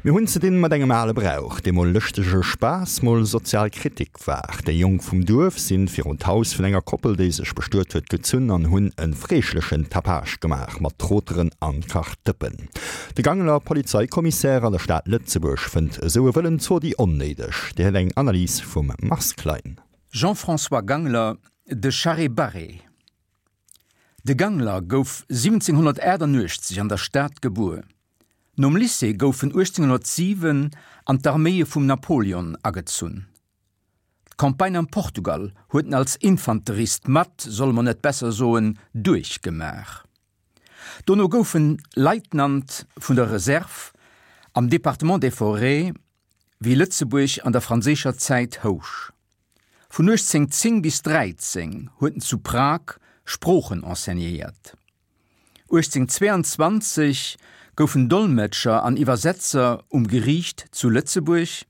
Mir hunn ze dinn mat engem ale Brauch, dee mol lëschtege Spaass, mol sozial Kritik war. Déi Jonk vum Duerf sinn virun d'Haus vun enger Koppel, déi sech bestuet huet, gezunn an hunn e freeschlechen Tapage gemaach mat Troteren an Kachdëppen. De Gangeler Polizeikommissär an der Stad Lëtzebuerg fënnt esou e wëllen Zodi onnéideg. Dir héiert eng Analys vum Mars Klein. Jean-François Gangler, De Charré-Barré. De Gangler gouf 1788 an der Stad gebuer. Nom Lycée gouf en 1807 an d'Arméie vum Napoleon agezunn. D'Campagne am Portugal huet en als Infanterist mat, solle mer net besser soen, duerchgemaach. Dono gouf en Leitnant vun der Reserve am Département des Forêts, wéi Lëtzebuerg an der franséischer Zäit housch. Vun 1810 bis 13 huet en zu Prag Sproochen enseignéiert. 1822 gouf en Dolmetscher an Iwwersetzer um Geriicht zu Lëtzebuerg,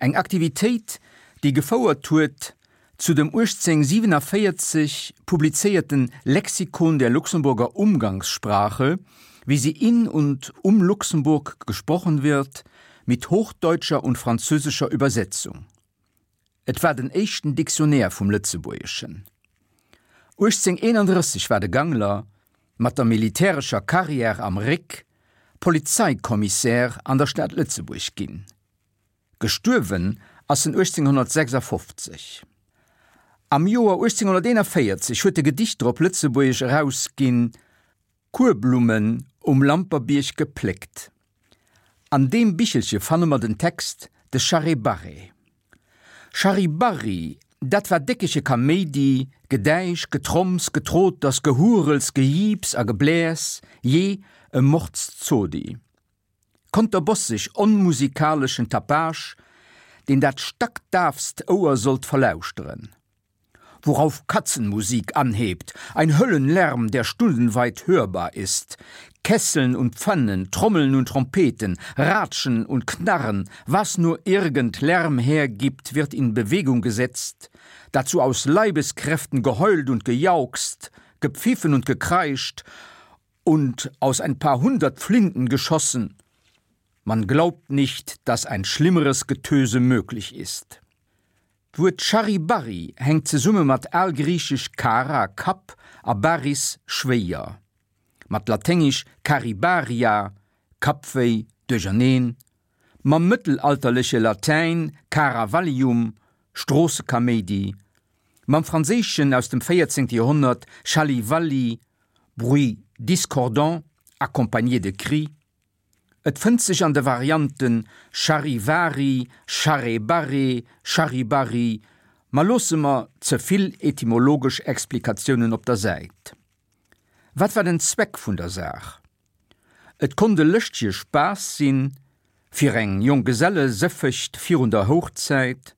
eng Aktivitéit, déi gefouert huet zu dem 1847 publizéierten Lexikon der Luxemburger Umgangssprache, wie sie in und um Luxemburg gesprochen wird, mit hochdeutscher und französischer Übersetzung. Et war den éischten Dictionnaire vum Lëtzebuergeschen. 1831 war de Gangler, mat der militärescher Carrière am Réck, Polizeikommissär an der Stad Lëtzebuerg ginn. Gestuerwen ass en 1856. Am Joer 1841 huet e Gedichter op Lëtzebuergesch erausginn, Kuerblummen um Lamperbierg gepléckt. An deem Bichelche fanne mer den Text De Charré-Barré. Charri-Barri, dat war déckege Kaméidi, Gedäisch, Getromms, Getroters, Gehurels, Gejiips a Gebläers, jee, e Mordszodi. Konterbosseg onmusikaleschen Tapage, deen dat stackdaafst Ouer sollt verlauschteren. Worauf Katzenmusik anhebt, ein Höllenlärm, der stundenweit hörbar ist. Kesseln und Pfannen, Trommeln und Trompeten, Ratschen und Knarren, was nur irgend Lärm hergibt, wird in Bewegung gesetzt, dazu aus Leibeskräften geheult und gejauchzt, gepfiffen und gekreischt und aus ein paar hundert Flinten geschossen. Man glaubt nicht, dass ein schlimmeres Getöse möglich ist. D'Wuert Charivari hänkt zesumme mat algriichesch kara, Kapp, a baris, schwéier, mat laténgesch caribaria, Kappwéi, Duercherneen, mam mëttelalterleche Latäin caravallium, Stroossekaméidi, mam Franséischen aus dem 14. Joerhonnert chalivalli, bruit discordant accompagné de cris. Et fënnt sech an de Varianten Charivari, Charrebarre, Charibari, ma loosse mer ze vill etymologesch Explikatiounen op der Säit. Wat war den Zweck vun der Saach? Et konnt e lëschtege Spaass sinn, fir eng Jonggesellesëffecht virun der Houchzäit,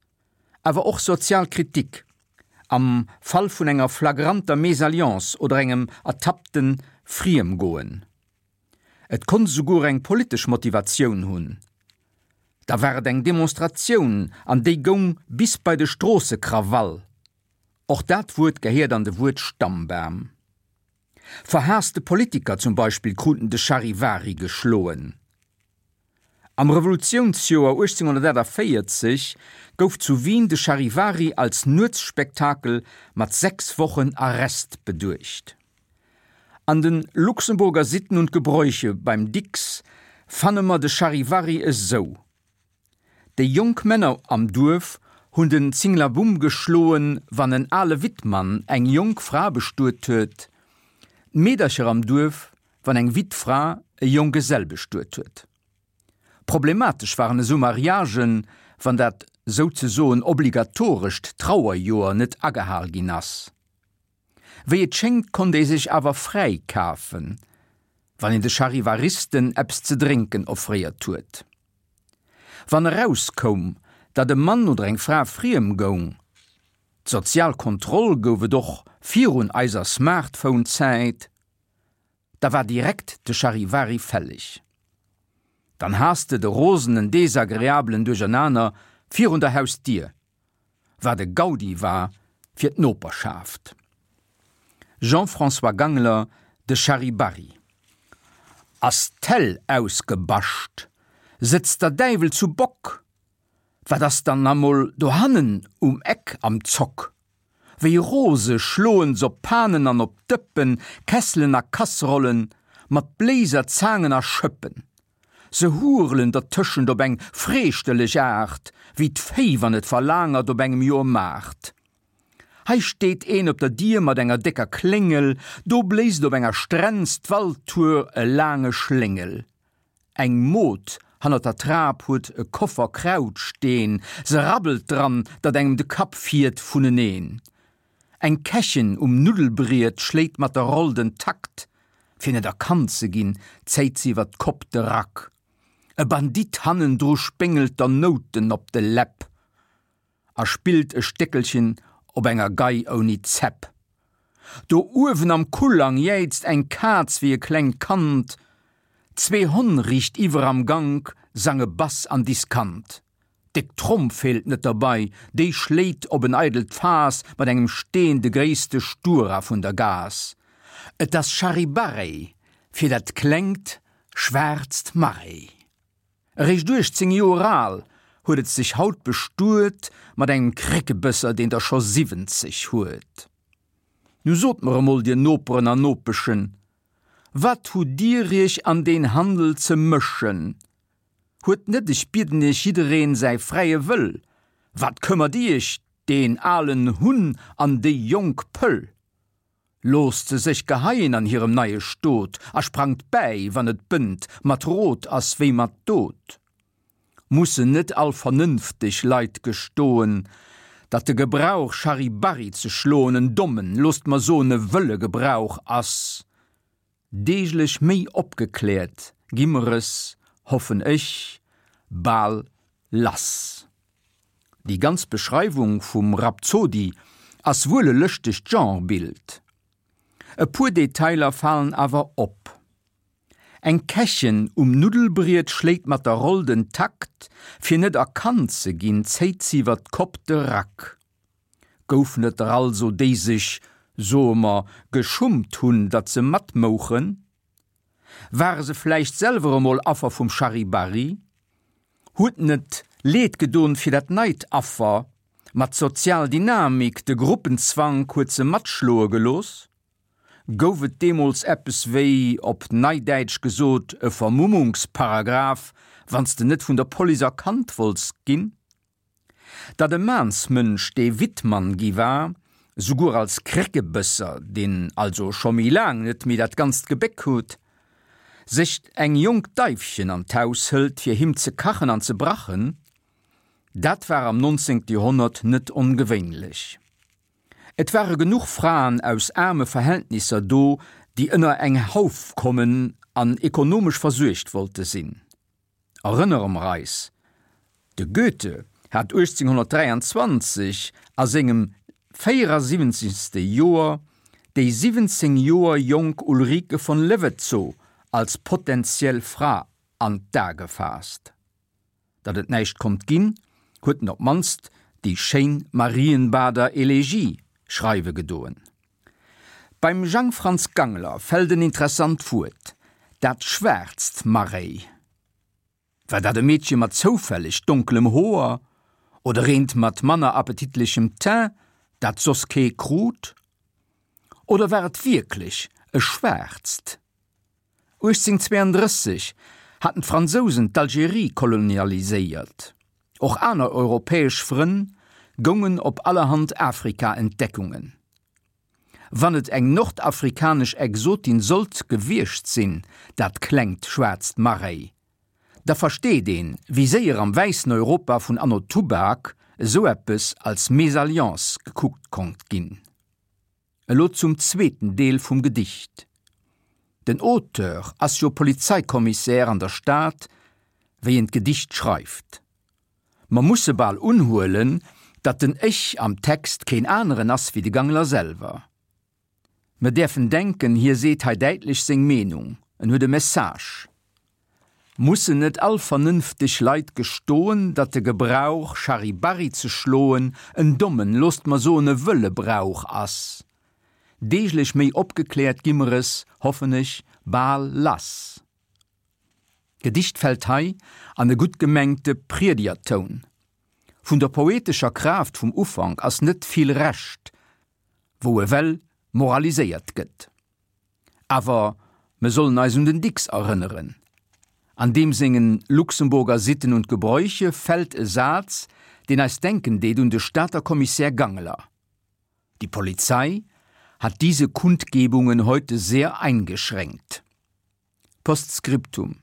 awer och sozial Kritik, am Fall vun enger flagranter Mésalliance oder engem ertappte Friemgoen. Et konnt esouguer eng politesch Motivatioun hunn. Da war et eng Demonstratioun an déi goung bis bei de Stroossekrawall. Och dat Wuert gehéiert an de Wuert-Stammbam. Verhaasste Politiker zum Beispill kruten de Charivari geschloen. Am Revolutiounsjoer 1848 gouf zu Wien de Charivari als Nuetsspektakel mat 6 Wochen Arrest beduecht. An den Luxemburger Sitten und Gebräuche beim Dicks fanne mer de Charivari esou, Déi jonk Männer am Duerf hunn den Zinglabumm geschloen, wann en ale Wittmann eng jonk Fra bestuet huet, d'Meedercher am Duerf, wann eng Wittfra e Jonggesell bestuet huet. Problematesch waren esou Mariagen, wann dat souzesoen obligatorescht Trauerjoer net agehal ginn ass. Wéi et schéngt konnt ee sech awer fräi kafen, wann een de Charivaristen eppes ze drénken offréiert huet. Wann erauskoum, datt e Mann oder eng Fra friem goung, d'sozial Kontroll gouf et och virun eiser Smartphone-Zäit, da war direkt de Charivari fälleg. Dann has de de rosenen desagreablen Duerchernaner virun der Hausdier, wat e Gaudi war fir d'Noperschaft. Jean-François Gangler, De Charivari. Ass d'Hell ausgebascht? Sëtzt der Däiwel zu Bock? Wat ass dann amol dohannen um Eck am Zock? Wéi rose schloen s'op Panen an op Dëppen, Kesselen a Kasserollen, mat Bléiser, Zaangen a Schëppen. Se hurelen dertëschent op eng freeschterlech Aart, wéi d'Véi wann et verlaangert op engem Joermaart. Hei steet een op der Dier mat enger décker Kléngel, do bléist op enger Strenz d'Waltour e laange Schléngel. Eng Mod hannert der Trap huet e Koffer Kraut steen, se rabbelt dran, datt engem de Kapp fiert vuneneen. Eng Kächen um Nuddelbriet schléit mat der Roll den Takt, fir net erkannt ze ginn, zéit se iwwer d'Kopp de Rack. E Bandit hannendru spéngelt der Nouten op de Läpp a spillt e Stéckelchen op enger Gei ouni Zäpp. Do uewen am Kullang jäizt eng Kaz wéi e klengt Kand, zwee Honn riichtiwwer am Gank sange Bass an Diskant. Déck Tromm feelt net derbei, déi schléit op en eidelt Faass mat engem Steen de gréisste Stura vun der Gaass. Et ass Charibarei fir dat klengt schwaarzt Marei. Eréischt 18 Joer al, huet et sech haut bestuet mat engem Kréckebësser, deen der scho 70 huet. Nu sot mer emol, dir Noperen an Nopeschen, wat hutt dir iech an deen Handel ze mëschen? Huet net, ech bieden iech, jiddereen säi fräie Wëll? Wat këmmert iech deen alen Hunn an déi jonk Pëll? Loosst se sech geheien an hirem neie Stot a sprangt bäi, wann et bënnt, mat Rot ass wéi mat Dot. Mussen net all vernënfteg Leit gestoen, datt de Gebrauch Charibarri ze schloen en dommen, loosst mer soen e wëlle Gebrauch ass? Deeglech méi opgekläert gi mer es, hoffen ech, bal lass. Déi ganz Beschreiwung vum Rhapsody ass wuel e lëschtegt Genrebild. E puer Detailer falen awer op. Eng Kächen um Nuddelbriet schléit mat der Roll den Takt, fir net erkannt ze ginn, zéit si iwwer d'Kopp de Rack. Goufen et der also, déi sech, soe mer, geschummt hunn, datt se matmouchen? Ware se vläicht selwer emol Affer vum Charivari? Huet net Leed gedon fir dat neit Affer, ma d'sozial Dynamik, de Gruppenzwank huet se matschloe gelooss? Gouf et deemools eppes wéi, op Neidäitsch gesot, e Vermummungsparagraph, wann s de net vun der Police erkannt wollts ginn? Datt e Maansmënsch, dee Wittmann gi war, souguer als Kréckebësser, deen also scho méi laang net méi dat ganzt Gebéck huet, sech eng jonk Daifchen an d'Haus hëlt, fir him ze kachen an ze brachen, dat war am nonzéngte Joerhonnert net ongewéinlech. Et ware genuch Fraen aus aarme Verhältnisser do, déi ënner eng Hauf kommen an ekonomesch versuergt wollte sinn. Erënnere mer eis, de Goethe hat 1823 a sengem 74. Joer déi 17 Joer jonk Ulrike von Levetzow als potentiell Fra an d'A gefaasst. Datt et näischt konnt ginn, huet en op d'mannst déi schéin Marienbader Elegie schreiwe gedoen. Beim Jang Franz Gangler fält en interessant Wuert, dat schwaarzt Marréi. War dat e Meedche mat zoufälleg donkelem Hoer oder eent mat manner appetitlechem Teint, dat soss kee krut? Oder war et wierklech e schwaarzt? 1832 haten d'Fransousen d'Algerie kolonialiséiert. Och aner europäesch Frënn goungen op allerhand Afrika-Entdeckungen. Wann et eng nordafrikanesch Exotin sollt gewiescht sinn, dat klengt schwaarzt Marréi, da versteet een, wéi séier am wäissen Europa vun anno Tubak esou eppes als Mésalliance gekuckt konnt ginn. Elo zum zweeten Deel vum Gedicht. Den Auteur ass jo Polizeikommissär an der Stad, wéi en d'Gedicht schreift. Mer musse bal unhuelen, datt den Ech am Text keen aneren ass wéi de Gangler selwer. Mer däerfen denken, hie seet hei däitlech seng Meenung, en huet e Message. Mussen net all vernënfteg Leit gestoen, datt de Gebrauch, Charibarri ze schloen, en dommen, loosst mer soen, e wëlle Brauch ass? Deeglech méi opgekläert gi mer es, hoffen ech, bal lass. D'Gedicht fält hei an e gutt gemengte Priedegertoun. Vun der poetescher Kraaft vum Ufank ass net vill Rescht, wou ewell moraliséiert gëtt. Awer mer sollen eis un den Dicks erënneren. An deem sengen Luxemburger Sitten und Gebräuche fält e Saz, deen eis denken deet un de Stater Kommissär Gangler, Die Polizei hat diese Kundgebungen heute sehr eingeschränkt. Postscriptum,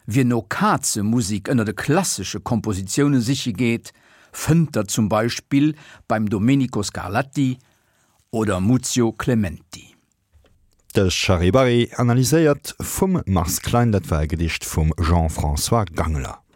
Wien no Kazemusik ënner de klassesche Kompositioune siche geet, fënnt der zum Beispill beim Domenico Scarlatti oder Muzio Clementi. De Charivari analyséiert vum Mars Klein, dat war e Gedicht vum Jean-François Gangler.